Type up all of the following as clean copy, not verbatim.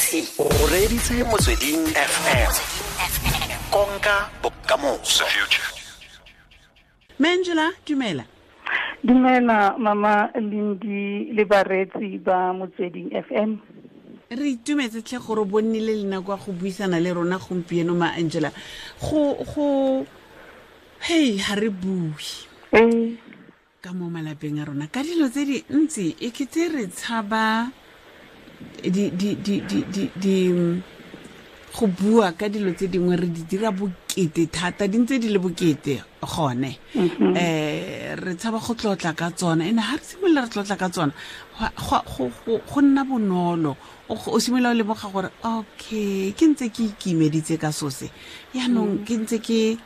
O reditse Motsweding FM, konka bokamoso. Mangela, dumela. Dumela mama Lindi le bareetsi ba Motsweding FM. Re itumetse tlhe gore bo nnile le nako ya go buisana le rona gompieno, ma Angela. Go hey, ha re bue ka mo malapeng a rona ka dilo tse dintsi, e kete re tshaba di di di di di di go bua ka dilo tse dingwe, re di dira bokete thata, di ntse di le bokete gone. Re tshaba go tlotla ka tsona, ene ha re simolola re tlotla ka tsona, go nna bonolo. O simolola o lemoga gore okay, ke ntse ke ikimeditse ka sose, yaanong ke ntse ke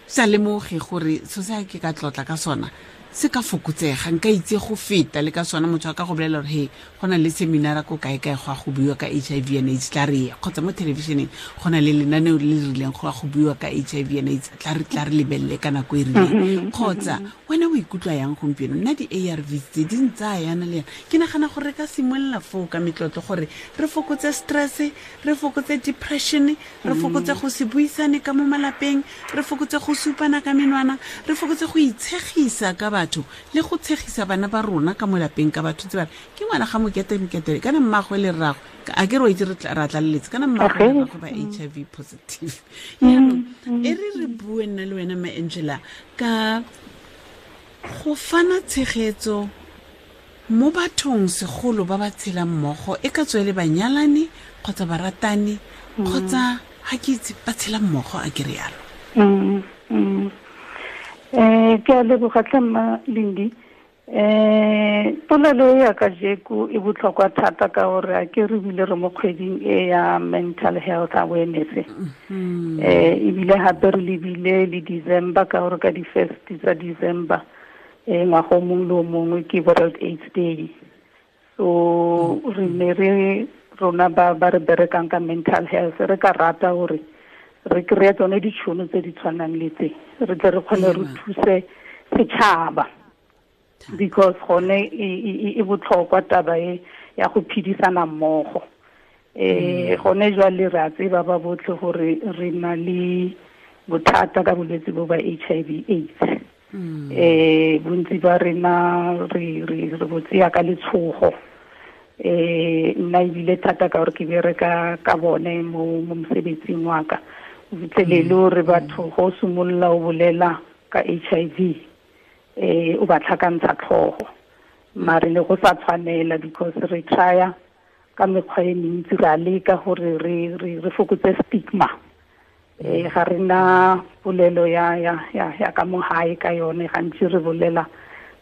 sa lemoge gore so se ke ka tlotla ka sona se ka fokotsega, nka itse go feta le ka sona. Motho a ka go bolela gore he, go na le seminara ko kae-kae go a go buiwa ka HIV and AIDS, tla re ye, kgotsa mo thelebišeneng go na le lenaneo le le rileng go a go buiwa ka HIV and AIDS, tla re lebelele ka nako e rileng. Kgotsa wena o ikutlwa yang gompieno? Nna di-ARV tse di ntsaya yana le yana, ke nagana gore re ka simolola foo ka metlotlo gore re fokotse stress, re fokotse depression, re fokotse go se buisane ka mo malapeng, re fokotse go supana ka menwana, re fokotse go itshegisa ka batho le go tshegisa bana ba rona ka mo lapeng ka batho tse ba re ke ngwana ga mokete mokete, kana mmagwe le rragwe, a ke re o itse ra tlaleletse, kana mmagwe le rragwe ba HIV positive. Yaanong e re re bue nna le wena, ma Angela, ka go fana tshegetso mo bathong, segolo ba ba tshelang mmogo, e ka tswe le banyalani kgotsa baratani kgotsa ga ke itse, ba tshela mmogo, a ke re yalo. Ke a leboga tlhe mma Lindi. Polelo e ya kajeko e botlhokwa thata ka gore a ke re bile re mo kgweding e ya mental health awareness. Ebile gape re lebile le December, ka gore ka di-first tsa December ngwaga o mongwe le o mongwe ke World AIDS Day. So re ne re rona ba re berekang ka mental health, re ka rata gore re kry-e tsone ditšhono tse di tshwanang le tse, re tle re kgone re thuse setšhaba, because gone e botlhokwa taba e ya go phedisana mmogo. Gone jwale re a tseba ba botlhe gore re na le bothata ka bolwetse bo ba HIV AIDS. Bontsi ba rena re bo tseya ka letshogo. Nna ebile thata ka gore ke bereka ka bone mo mosebetsing wa ka, o fitlhelele gore batho go simolola o bolela ka HIV, o ba tlhakantsha tlhogo, mare le go sa tshwanela, because re trya ka mekgwa e mentsi, re a leka gore re fokotse stigma. Ga re na polelo ya ka mo gae ka yone, gantsi re bolela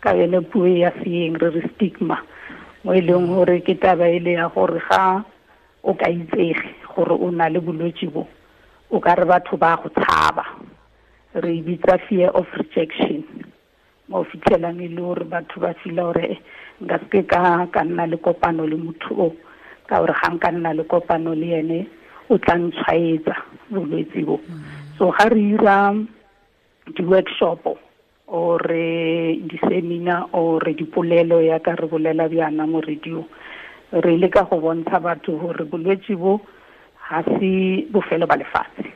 ka yone puo ya seeng, re re stigma, mo e leng gore ke taba e le ya gore ga o ka itsege gore o na le bolwetse bo, o ka re batho ba go tshaba. Re e bitsa fear of rejection, mo fitlhelang e le gore batho ba feel gore nka seke ka nna le kopano le motho o, ka gore ga nka nna le kopano le ene o tla ntshwaetsa bolwetse bo. So ga re ira di-workshop or di-seminar or dipolelo ya ka re bolela bjana mo radio, re leka go bontsha batho gore bolwetse bo ga se bofelo ba lefatshe.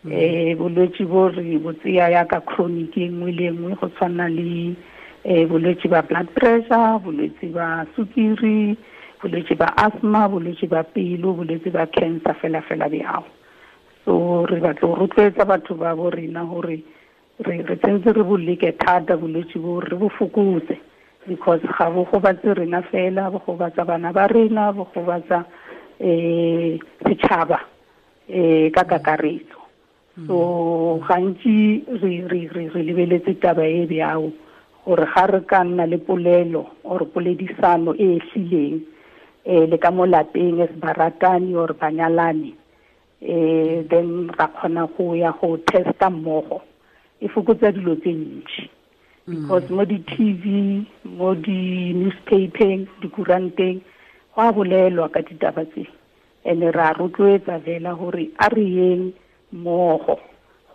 Bolwetse bo re bo tseya yaka chronic e nngwe le nngwe, go tshwana le bolwetse ba blood pressure, bolwetse ba sukiri, bolwetse ba asthma, bolwetse ba pelo, bolwetse ba cancer, fela fela bjao. So re batla go rotloetsa batho ba bo rena gore re tsentse re bo leke thata bolwetse bo, re bo fokotse, because ga bo gobatse rena fela, bo gobatsa bana ba rena, bo gobatsa setšhaba ka kakaretso. So gantsi re lebeletse taba e bjao gore ga re ka nna le polelo or poledisano e e hlileng le ka mo lapeng as baratani or banyalani, then ra kgona go ya go testa mmogo, e fokotsa dilo tse ntši, because mo di-TV, mo di-newspapeng, dikuranteng, go a bolelwa ka ditaba tse, and re a rotloetsa fela gore a re yeng mmogo.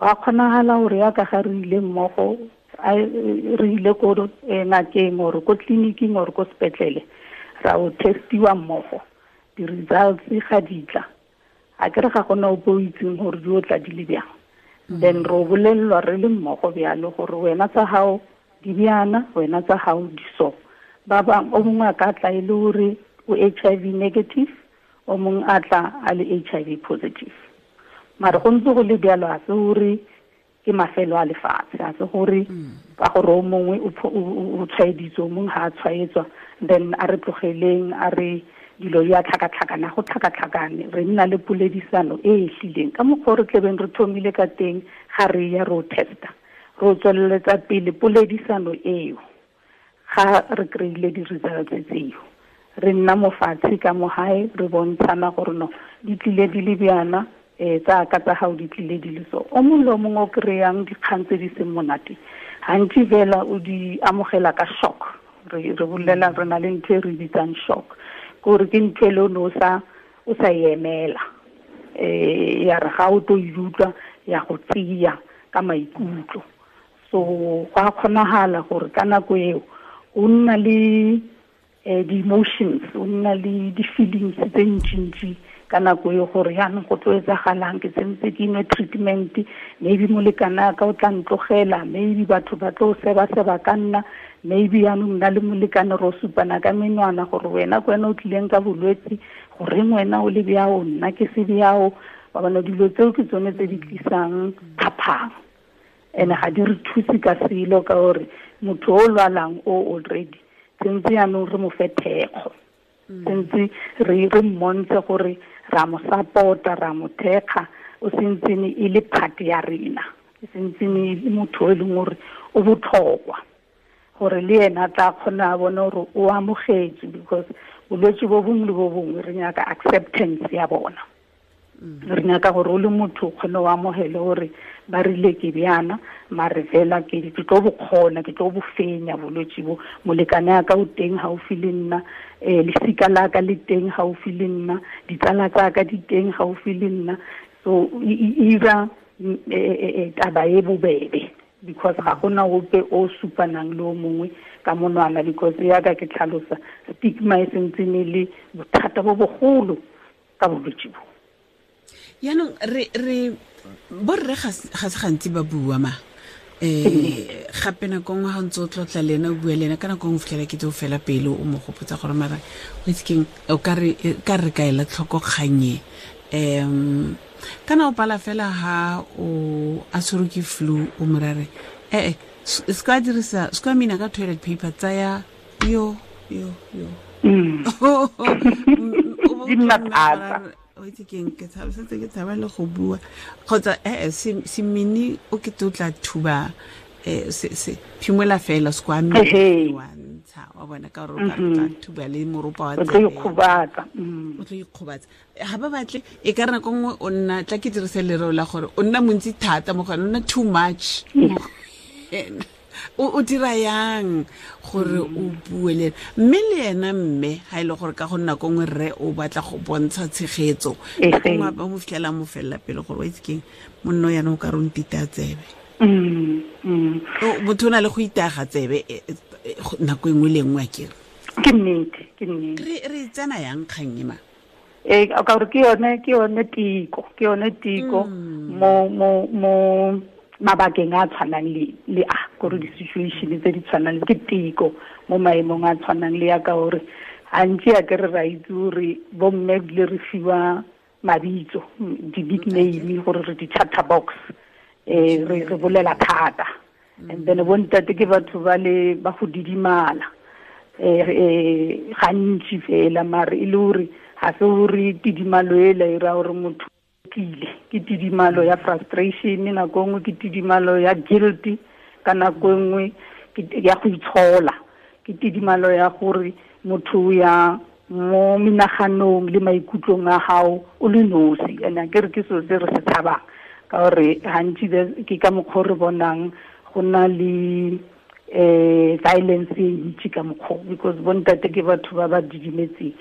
Go a kgonagala gore yaka ga re ile mmogo, re ile ko ngakeng or ko tleliniking or ko sepetlele, ra o testiwa mmogo. di-results ga di tla, a ke re ga gona ope o itseng gore di o tla di le bjang. Then re bolellwa re le mmogo bjalo gore wena tsa gago di bjana, wena tsa gago di so. Ba bang o mongwe a ka tla e le gore o HIV negative, o mongwe a tla a le HIV positive. Mare go ntse go le bjalo, a se gore ke mafelo a lefatshe, a se gore ka gore o mongwe o tshwaeditswe, o mongwe ga a tshwaetswa, then a re tlogeleng, a re dilo di a tlhakatlhakana, go tlhakatlhakane. Re nna le poledisano e e hlileng ka mokgwa o re tlebeng re thomile ka teng ga re ya ro testa, ro tsweleletsa pele poledisano eo. Ga re kry-ile di-results tseo, re nna mofatshe ka mo gae, re bontshana gore no di tlile di le bjana, tsa ka tsa gago di tlile di le so. O mongwe le o mongwe o kry-ang dikgang tse di seng monate, gantsi fela o di amogela ka shock. Re bolela re na le ntho e re bitsang shock, gore ke ntho e le o ne o sa e emela, ya re ga o tlo e utlwa ya go tseya ka maikutlo. So go a kgonagala gore ka nako eo o nna le di-emotions, o nna le di-feelings tse ntšintši ka nako e gore yaanong go tlo etsagalang, ke sentse ke nwe treatment, maybe molekane ka o tla ntlogela, maybe batho ba tlo seba-seba ka nna, maybe yaanong nna le molekane ro supana ka menwana gore wena ke wena o tlileng ka bolwetse, goreng wena o le bjao, nna ke se bjao. Wa bona, dilo tseo ke tsone tse di tlisang phaphang, and ga di re thuse ka selo, ka gore motho o lwalang o already sentse yaanong re mo fe thekgo, sentse re mmontshe gore ra mo support-a, ra mo thekga, o sentsene e le part ya rena, e sentsene e le motho e leng gore o botlhokwa, gore le ena a tla kgona a bone gore o amogetswe, because bolwetse bo bongwe le bo bongwe re nyaka acceptance ya bona. Re nyaka gore o le motho o kgone o amogele gore ba rile ke bjana, mare fela ke tlo bo kgona, ke tlo bo fenya bolwetse bo. Molekane a ka o teng gaufi le nna, lesika la ka le teng gaufi le nna, ditsala tsa ka di teng gaufi le nna. So e ira taba e bobebe, because ga gona ope o supanang le o mongwe ka monwana, because yaka ke tlhalosa stigma e sentsene le bothata bo bogolo ka bolwetse bo. Yaanong re borre ga se gantsi ba bua ma, gape nako nngwe ga ntse o tlotla le ena, o bua le ena, ka nako nngwe o fitlhela ke tse o fela pele o mo gopotsa gore mara o itse keng, o ka re ka ela tlhoko kganye. Kana o pala fela ha o a tshwerwe ke flu, o mo rare se ka dirisa, se ka mina ka toilet paper, tsaya yo yo yo. Di nna thata. O itse keng, ke tshaba setse ke tshaba le go bua, kgotsa se mini o ke tlo tla thuba, se phimola fela, se kwa mme wa ntsha, wa bona, ka gore o ka tla thuba le moropa wa tsebe, o tlo ikgobatsa. O tlo ikgobatsa. Ga ba batle, e ka re nako nngwe o nna, tla ke dirise lereo la gore o nna montsi thata mo go ena, o nna too much mo go ena. O dira yang gore o bue le ena? Mme le ena mme ga e le gore ka go nna ko nngwe rre o batla go bontsha tshegetso, nako nngwe ba mo fitlhela mo felela pele gore wa itse keng, monno yana o ka re o ntita tsebe. Motho o na le go itaga tsebe nako e nngwe le nngwe, a kere. Ke nnete, ke nnete. Re tsena yang kgang e ma? Ka gore ke yone tiko, ke yone tiko mo mabakeng a tshwanang le a gore di-situation tse di tshwanang ke tiko mo maemong a tshwanang le ya ka gore gantsi a ke re ra itse gore bomme ebile re fiwa mabitso, di-nickname gore re di-chatterbox, re bolela thata. And then bontate ke batho ba le ba go didimala gantsi fela, mare e le gore ga se gore tidimalo ela e ra gore motho tlile, ke tidimalo ya frustration nako nngwe, ke tidimalo ya guilt ka nako nngwe, ya go itshola, ke tidimalo ya gore motho ya mo menaganong le maikutlong a gago o le nosi. And a ke re ke selo se re se tshabang, ka gore gantsi ke ka mokgwa o re bonang go na le violence e ntsi ka mokgwa, because bontate ke batho ba ba didimetseng.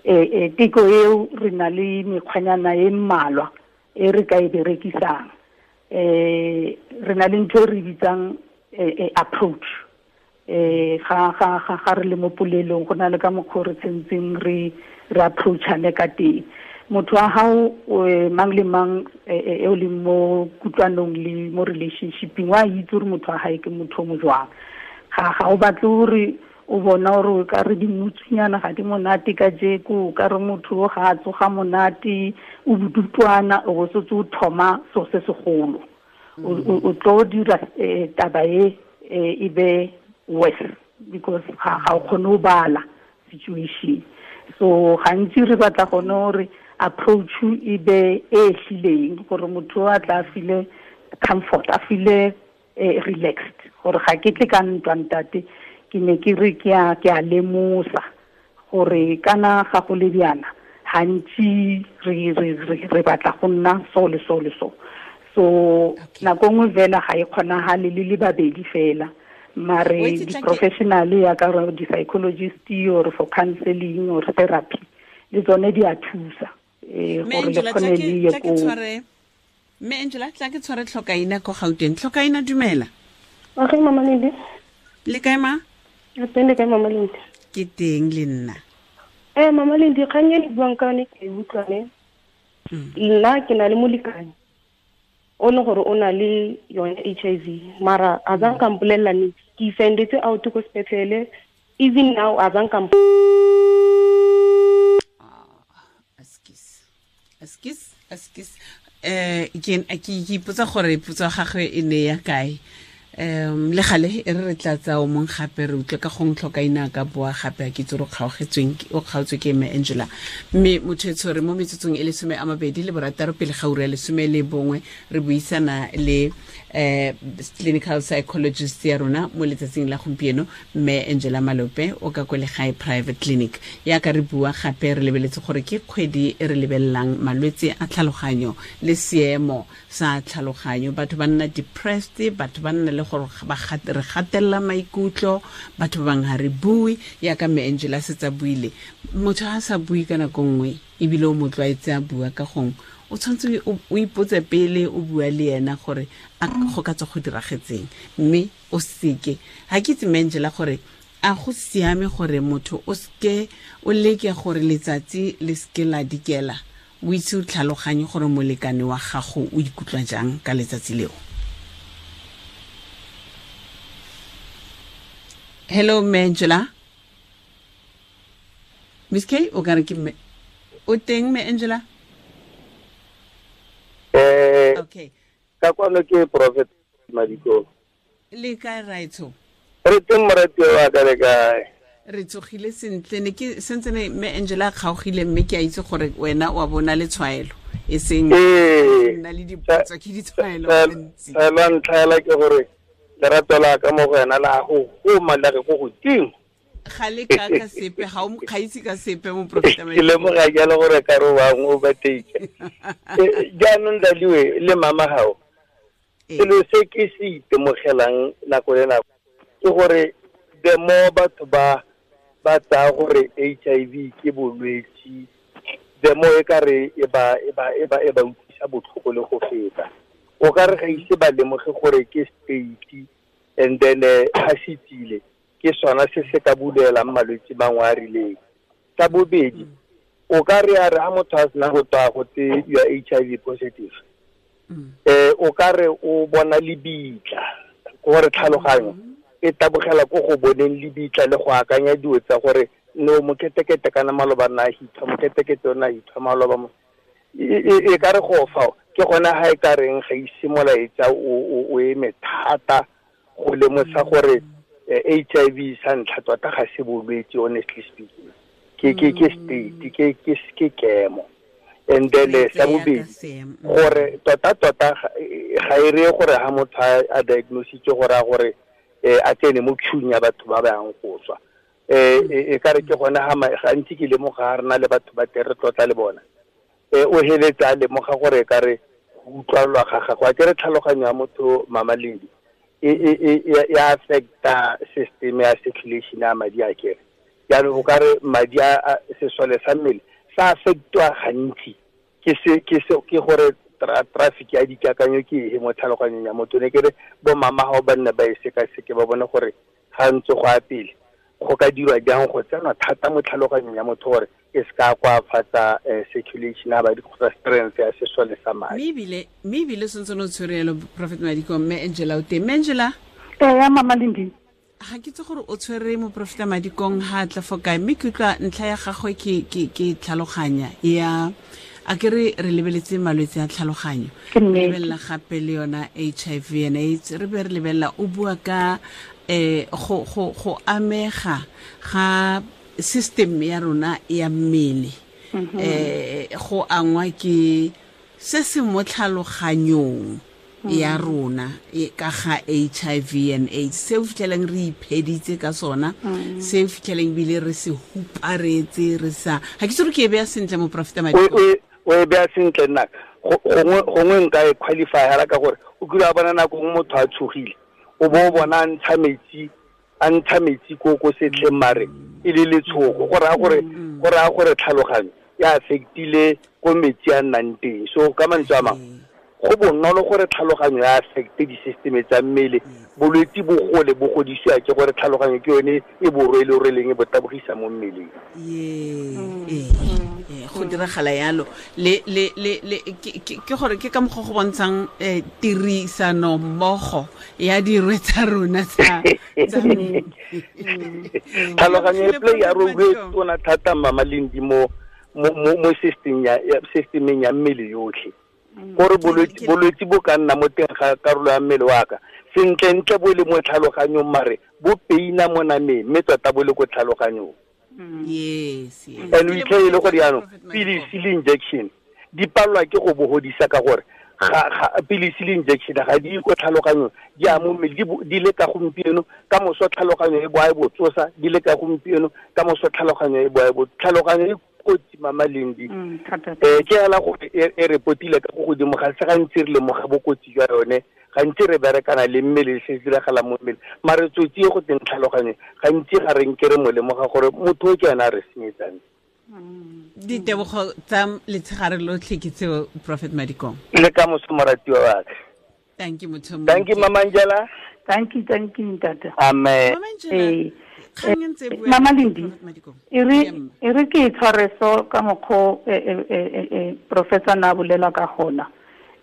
Teko eo re na le mekgwanyana e mmalwa e re ka e berekisang. Re na le ntho e re bitsang approach. Ga ga ga ga re le mo polelong go na le ka mokgwa re tsentseng re re approachane ka teng. Motho wa hao mang le mang e o leng mo kutlwanong le mo relationshipeng wa itse gore motho wa hae ke motho o mo jwang. Ga o batle gore o bona gore o ka re dimutsunyana ga di monate ka jeko, o ka re motho o ga a tsoga monate, o bodutwana, o bo setse o thoma so se segolo. O tlo dira taba e be worse because ga o kgone go bala situation. So gantsi re batla gone gore approach e be e hlileng gore motho a tla feel comfort, a feel relaxed, gore ga ke tle ka ntwa ntate, ke ne ke re ke a lemosa gore kana ga go le bjana gantsi re batla go nna so le so le so. So nako nngwe fela ga e kgonagale le le babedi fela, mare di-professional ya ka gore di-psychologist or for counseling or therapy le tsone di a thusa gore le kgone le ye ko. Mme Angela, tla ke tshware Tlhokaina ko Gauteng. Tlhokaina, dumela. Okay, Mama Lindi. Le kae ma? Re teng, le kae Mama Lindi? Ke teng le nna. Mama Lindi, kgang e le buang ka yone ke e utlwane. Nna ke na le molekane o leng gore o na le yone HIV, mara a zang ka mpolelela niks. Ke sendetse out ko sepetlele, even now a zang ka Askis. Ke ipotsa gore potso gagwe e ne ya kae. Le gale e re tla tsa o mong gape re utlwe ka gong Tlhokaina ka boa gape a ke itse gore o kgaotswe ke mme Angela. Mme motho e tshwere mo metsotsong e le 26 pele ga ura ya 11 re buisana le clinical psychologist ya rona mo letsatsing la gompieno, mme Angela Malope o ka ko Legae Private Clinic. Ya ka re bua gape re lebeletse gore ke kgwedi e re lebelelang malwetse a tlhaloganyo le seemo sa tlhaloganyo. Batho ba nna depressed, batho ba nna le gore re gatelela maikutlo, batho ba bangwe ga re bue, yaka mme Angela setsa buile. Motho ha sa bue ka nako nngwe ebile o mo tlwaetse a bua ka gongwe, o tshwanetse o ipotse pele o bua le ena gore a go ka tswa go diragetseng, mme o seke. Ga ke itse mme Angela gore a go siame gore motho o seke o leke gore letsatsi le seke la dikela, o itse o tlhaloganye gore molekane wa gago o ikutlwa jang ka letsatsi leo. Hello, mme Angela. Miss K, o ka re ke mme o teng mme Angela? Okay. Ka kwano ke Prophet Madiko. Le kae raitsho? Re teng morati wa ka, le kae? Re tsogile sentle, ne ke sentse ne mme Angela kgaogile, mme ke a itse gore wena wa bona le tshwaelo e seng nna le dipotso ke ditshwaelo gantsi. La ntlha la ke gore lerato la ka mo go wena la go goma la re go godimo. Ga le ka ka sepe, ga o mokgaitse ka sepe mo Prophet Madiko. Ke lemoga jalo gore ka re wa o bateke. Jaanong Daliwe le mama gago, selo se ke se itemogelang nako le nako ke gore the more batho ba tsaya gore HIV ke bolwetse, the more e ka re e ba utlwisa botlhoko le go feta. O ka re ga ise ba lemoge gore ke state, and then ga se tsile ke sona se se ka bulelang malwetse mangwe a rileng. Sa bobedi, o ka re a re ha motho a sena go tswa go tse you are HIV positive, o ka re o bona lebitla, gore tlhaloganyo e tabogela ko go boneng lebitla le go akanya dilo tsa gore no moketekete kana maloba na hitha, moketekete ona hitha maloba mo. E ka re go fa ke gona ha e ka reng ga ise molaetsa o eme thata go lemosa gore HIV sa ntlha tota ga se bolwetse, honestly speaking. Ke state, ke kemo. And then sa bobedi gore tota ga e re gore ha motho a diagnositse gore a gore a tsene mo queue ya batho ba ba yang go tswa. E ka re ke gona ha gantsi ke lemoga re na le batho ba tere tlotla le bona. O heletsa a lemoga gore ka re go utlwalwa ga gagwe, a ke re tlhaloganyo ya motho Mama Lindi e affecta system ya circulation ya madi a kere. Jaanong o ka re madi a sesole sa mmele sa affectwa gantsi ke gore traffic ya dikakanyo ke e mo tlhaloganyong ya motho. Ne ke re bo mama ga ba nne ba e sekaseke ba bone gore ga ntse go a pele go ka dirwa jang go tsenwa thata mo tlhaloganyong ya motho gore e se ka koafatsa circulation ya madi kgotsa strength ya sesole sa madi. Mme ebile sentse no tshwere yalo Prophet Madikong, mme Angela o teng. Mme Angela? Ee, Mama Lindi. Ga ke itse gore o tshwere moprofeta Madikong ha tla fo kae, mme ke utlwa ntlha ya gagwe ke tlhaloganya ya a ke re lebeletse malwetse a tlhaloganyo, re lebelela gape le yona HIV and AIDS, re be re lebelela o bua ka go amega ga system ya rona ya mmele, go angwa ke se se mo tlhaloganyong ya rona ka ga HIV and AIDS, se o fitlheleng re ipheditse ka sona, se o fitlheleng bile re se huparetse re sa ga ke tsore ke e beya sentle moprofeta Madikong. O e beya sentle nna gongwe nka e qualify hela ka gore o kile wa bona nako nngwe motho a tshogile o bo o bona a ntsha metsi ko setlheng mare e le letshogo, go raya gore tlhaloganyo ya affectile ko metsi a nnang teng. So ka mantswe a mangwe go bonolo gore tlhaloganyo ya affecte di-system tsa mmele, bolwetse bo gole bo godisiwa ke gore tlhaloganyo ke yone e bo rwele-rweleng e bo tabogisa mo mmeleng. Go diragala yalo le ke gore ke ka mokgwa go bontshang tirisano mmogo ya dirwe tsa rona tsa tlhaloganyo e play ya role e tona thata Mama Lindi mo systemeng ya mmele yotlhe. Gore bolwetse bo ka nna mo teng ga karolo ya mmele wa ka sentlentle bo le mo tlhaloganyong mare bo peina mo nameng mme tota bo le ko tlhaloganyong. Yes. And o itlhe e le gore jaanong pilisi le injection di palelwa ke go bo godisa ka gore pilisi le injection ga di ko tlhaloganyong, di a mo mmele di le ka gompieno ka moso tlhaloganyo e boa e bo tsosa, di le ka gompieno ka moso tlhaloganyo e boa e bo tlhaloganyo e kotsi Mama Lindi. Ke hela gore e repotile ka go godimo ga se gantsi re lemoga bokotsi jwa yone, gantsi re berekana le mmele se se diragalang mo mmele, mare tsotsi e go teng tlhaloganyo gantsi ga re nke re mo lemoga gore motho o ke ena a re senyetsang. Ditebogo tsa letshegare lotlhe ke tseo Prophet Madikong. Le ka moso moratiwa wa ka. Thank you motho. Thank you Mama Angela. Thank you ntate. Amen. Mama Angela. Mama Lindi, e re ke tshware so ka mokgo professor na bolela ka gona.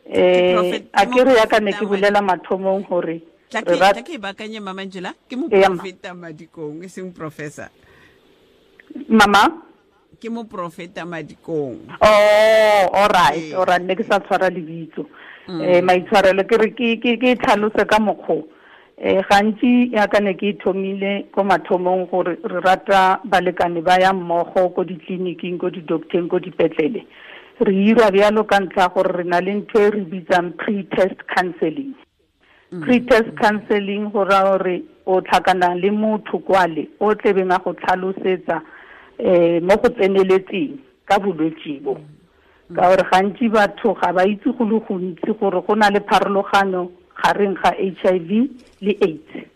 A ke re ya ka ne ke bolela mathomong hore tla ke bakanye Mama Angela ke moprofeta Madikong e seng professor. Mama ke moprofeta Madikong. Oh, all right, all right, ne ke sa tshwara lebitso. Maitshwarelo ke re ke tlhalose ka mokgo. Gantsi ya ka ne ke thomile ko mathomong gore re rata balekane ba ya mmogo ko ditleliniking, ko di-docteng, ko dipetlele. Re ira bjalo ka ntlha gore re na le ntho e re bitsang pre-test counseling. Pre-test counseling go raya gore o tlhakana le motho kwale o tlebeng a go tlhalosetsa mo go tseneletseng ka bolwetse bo. Ka gore gantsi batho ga ba itse go le gontsi gore go na le pharologano gareng ga HIV le AIDS.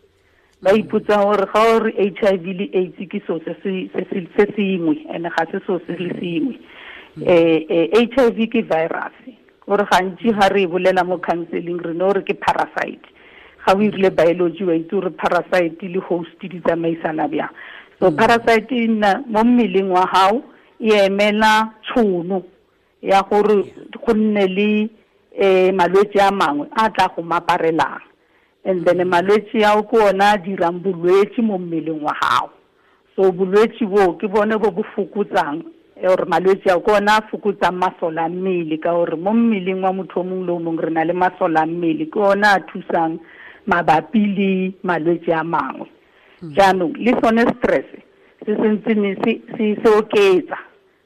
Ba ipotsa gore ga o re HIV le AIDS ke so se sengwe and ga se so se le sengwe. HIV ke virus. Gore gantsi ga re bolela mo counseling re no re ke parasite. Ga o irile biology wa itse gore parasite le host di tsamaisana bjang. So parasite e nna mo mmeleng wa hao e emela tshono ya gore go nne le malwetse a mangwe a tla go maparelang, and then malwetse ao ke ona a dirang bolwetse mo mmeleng wa gago. So bolwetse bo ke bone bo bo fokotsang or malwetse ao ke ona a fokotsang masole a mmele, ka gore mo mmeleng wa motho o mongwe le o mongwe re na le masole a mmele, ke ona a thusang mabapi le malwetse a mangwe. Jaanong le sone stress se sentse se oketsa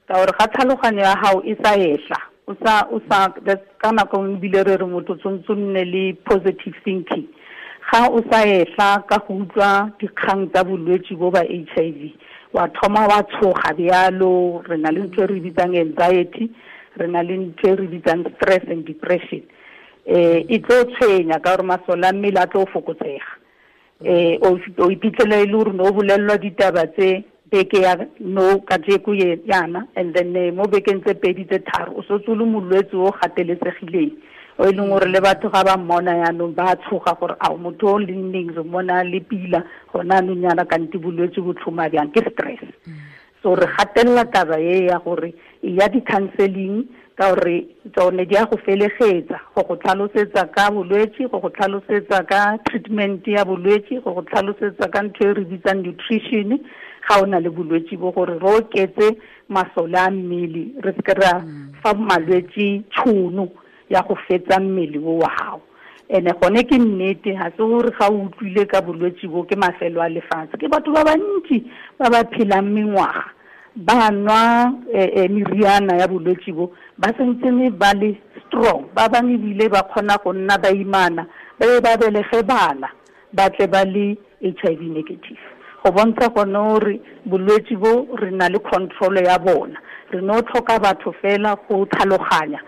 ka gore ga tlhaloganyo ya gago e sa etla o sa ka nako nngwe ebile re re motho tshwanetse o nne le positive thinking. Ga o sa etla ka go utlwa dikgang tsa bolwetse bo ba HIV wa thoma wa tshoga bjalo. Re na le ntho e re bitsang anxiety, re na le ntho e re bitsang stress and depression. E tlo tshwenya ka gore masole a mmele a tlo fokotsega. O iphitlhela e le gore no o bolellwa ditaba tse beke ya no ka jeko ye yana, and then mo bekeng tse pedi tse tharo o setse o le molwetse o gateletsegileng, O e leng gore le batho ga ba mmona yaanong ba tshoga gore a motho o leng neng re mmona le pila gona anong yana kante bolwetse bo tlhoma bjang, ke stress. So re gatelela taba e ya gore e ya di-counseling ka gore tsone di a go felegetsa, go go tlhalosetsa ka bolwetse, go go tlhalosetsa ka treatment ya bolwetse, go go tlhalosetsa ka ntho e re bitsang nutrition ga o na le bolwetse bo, gore re oketse masole a mmele, re seke ra fa malwetse tšhono ya go fetsa mmele o wa gago. Ene gone ke nnete, ga se gore ga o utlwile ka bolwetse bo ke mafelo a lefatshe. Ke batho ba bantsi ba ba phelang mengwaga ba nwa meriana ya bolwetse bo, ba sentsene ba le strong, ba bangwe ebile ba kgona go nna baimana, ba be ba belege bana, ba tle ba le HIV negative. Go bontsha gone gore bolwetse bo re na le control ya bona, re no tlhoka batho fela go tlhaloganya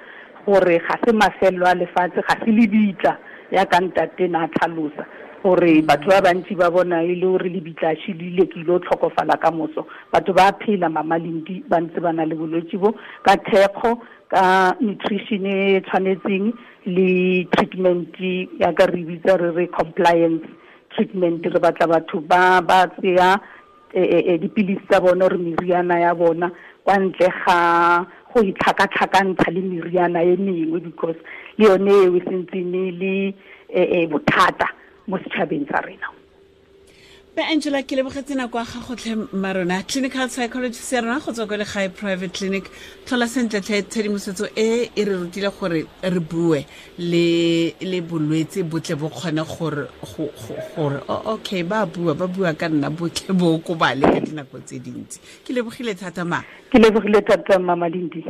gore ga se mafelo a lefatshe, ga se lebitla ya ka ntate na tlhalosa gore batho ba bantsi ba bona e le gore lebitla shilile ke ile tlhokofala ka moso. Batho ba phela Mama Lindi ba ntse ba na le bolwetse bo ka thekgo, ka nutrition e tshwanetseng le treatment ya ka re bitsa re re compliance treatment. Re batla batho ba ba tseya dipilisi tsa bona re meriana ya bona kwa ntle ga go itlhakatlhakantsha le meriana e mengwe, because le yone eo e sentsene le bothata mo setšhabeng sa rena. Be Angela, ke lebogetse nako ya gago tlhe mmarona, clinical psychologist ya rona go tswa kwa Legae Private Clinic. Tlhola sentle tlhe, tshedimosetso e e re rutile gore re bue le bolwetse botle bo kgone gore gore okay, ba bua ka nna botle bo okobale ka dinako tse dintsi. Ke lebogile thata ma. Ke lebogile thata Mama Lindi.